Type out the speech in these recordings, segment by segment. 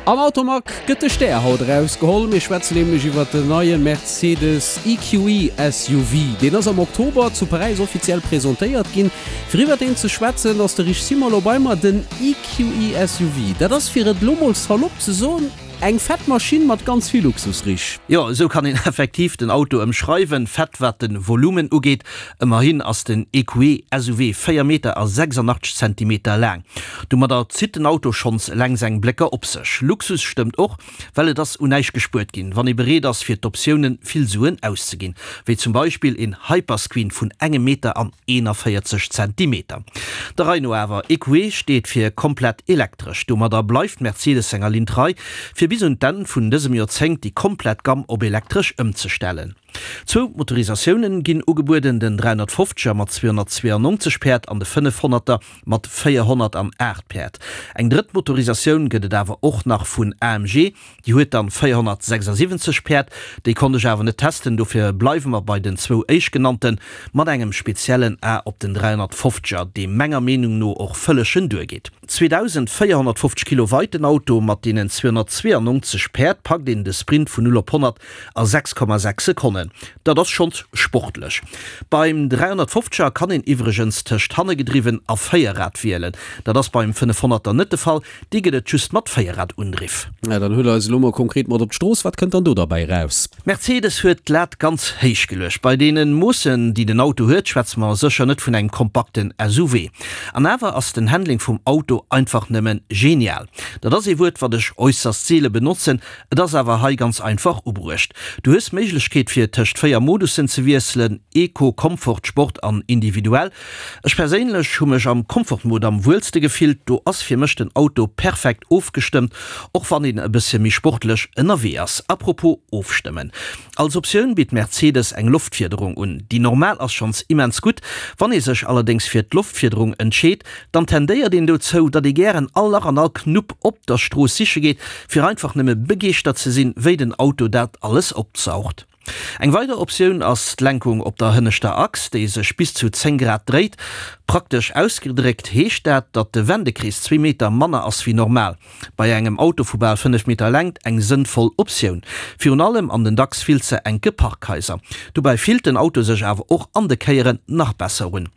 Am Automag gëtt de Stär haut erausgeholl. Mir schwätzen nämlech iwwer den neie Mercedes EQE SUV. Deen ass am Oktober zu Paräis offiziell presentéiert ginn. Fir iwwer deen ze schwätzen, ass de Rich Simon lo bei mer. Den EQE SUV, dat ass, fir et lo mol salopp ze soen, Eng fett Maschinn mat ganz vill Luxus, Rich. Jo, esou kann een effektiv den Auto ëmschreiwen. Fett wat de Volumen ugeet, ëmmerhin ass den EQE SUV 4 Meter a 86 Zentimeter laang. Domadder zitt den Auto schonns eleng seng Blécker op sech. Luxus stëmmt och, well et ass un näischt gespuert ginn, wann ee bereet ass fir d'Optiounen vill Suen auszeginn, wéi zum Beispill een Hyperscreen vun engem Meter an 41 Zentimeter. Der Rei no awer, EQE steet fir komplett elektresch. Domadder bleift Mercedes senger Linn trei, fir bis un d'Enn vun dësem Joerzéngt déi komplett Gamm op elektresch ëmzestellen. Zwou Motorisatiounen ginn ugebueden, den 350er mat 292 Päerd an de 500er mat 408 Päerd. Eng drëtt Motorisatioun gëtt et awer och nach vun AMG, Déi huet dann 476 Päerd, déi konnt ech awer net testen, dofir bleiwe mer bei den zwou éischtgenannten, mat engem speziellen A op den 350er, dee menger Meenung no och vëllegen duergeet. 2450 Kilo weit den Auto, mat deenen 292 Päerd packt een de Sprint vun 0 op 100 a 6,6 Sekonnen, dat ass schonns sportlech. Beim 350er kann een iwwregens tëscht hannegedriwwen a Véierrad wielen, dat ass beim 500er net de Fall, Déi gëtt et just mat Véierrad-Undriff. Ja, dann huel eis elo mol konkret mat op d'Strooss. Wat kënnt dann do derbäi raus? Mercedes huet d'Lat ganz héich geluecht. Bei deene Moossen, déi den Auto huet, schwätze mer sécher net vun engem kompakten SUV. An awer ass den Handling vum Auto einfach nëmme genial. Dat ass ee Wuert, wat ech äusserst seele benotzen, et ass awer hei ganz einfach ubruecht. Du hues d'Méiglechkeet fir tëscht 4 Modussen ze wiesselen, Eco, Comfort, Sport an Individuell. Ech perséinlech hu mech am Comfort-Mode am wuelste gefillt, do ass fir mech den Auto perfekt ofgestëmmt, och wann een e bëssche méi sportlech ënnerwee ass. Apropos ofstëmmen, als Optioun bitt Mercedes eng Loftfiederung un. Déi normal ass schonns immens gutt, wann ee sech allerdéngs fir d'Loftfiederung entscheet, dann tendéiert een dozou, datt ee gären all Lach an all Knupp op der Strooss siche geet, fir einfach nëmme begeeschtert ze sinn, wéi den Auto dat alles opsaugt. Eng weider Optioun ass d'Lenkung op der hënneschter Achs, déi sech bis zu 10 Grad dréit. Praktesch ausgedréckt heescht dat, datt de Wendekrees zwee Meter manner ass wéi normal. Bei engem Auto vu bal 5 Meter Längt eng sënnvoll Optioun, virun allem an den dacks vill ze enke Parkhaiser. Dobäi fillt den Auto sech awer och an de Kéieren nach besser un.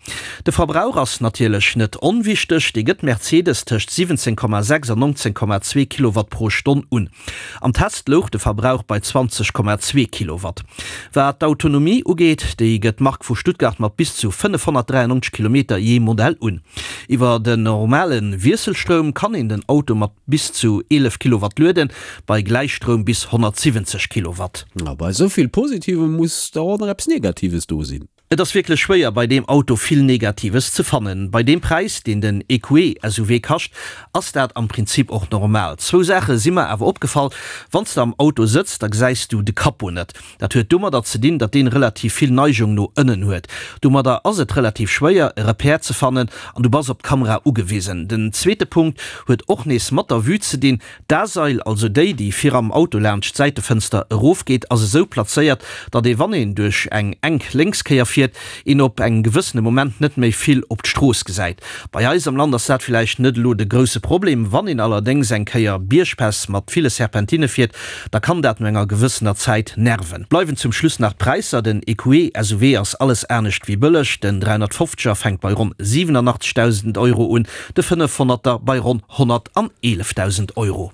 De Verbrauch ass natierlech net onwichteg, dee gëtt Mercedes tëscht 17,6 an 19,2 Kilowatt pro Stonn un. Am Test louch de Verbrauch bei 20,2 Kilowatt. Wat d'Autonomie ugeet, déi gëtt d'Mark vu Stuttgart mat bis zu 593 Kilometer jee Modell un. Iwwer den normale Wiesselstroum kann een den Auto mat bis zu 11 Kilowatt lueden, bei Gläichstroum bis 170 Kilowatt. A bei esou vill Positivem muss dach och nach eppes Negatives do sinn. Et ass wierklech schwéier bei deem Auto vill Negatives ze fannen. Bei deem Präis deen den EQE SUV kascht, ass dat am Prinzip och normal. Zwou Saache si mer awer opgefall, Wann s de am Auto sëtz, da gesäis du de Capot net. Dat huet domadder ze dinn, datt deen relativ vill Neigung no ënnen huet. Domadder ass et relativ schwéier e Repère ze fannen an du bass op d'Kamera ugewisen. Den zweete Punkt huet och nees mat der Vue ze dinn. D'A-Sail, also déi, déi vir am Auto laanscht d'Säitefënster erofgeet, ass esou plazéiert, datt ee wann een duerch eng enk Lénkskéier fiert, een op engem gewëssene Moment net méi vill op d'Strooss gesäit. Bei eis am Land ass dat villäicht net elo de grousse Problem, wann een allerdéngs eng Kéier Biergpäss mat ville Serpentinne fiert, da kann dat no enger gewëssener Zäit nerven. Bleiwen zum Schluss nach d'Präisser, Den EQE SUV ass alles anescht wéi bëlleg, den 350er fänkt bei ronn 87.000 Euro un, de 500er bei ronn 111.000 Euro.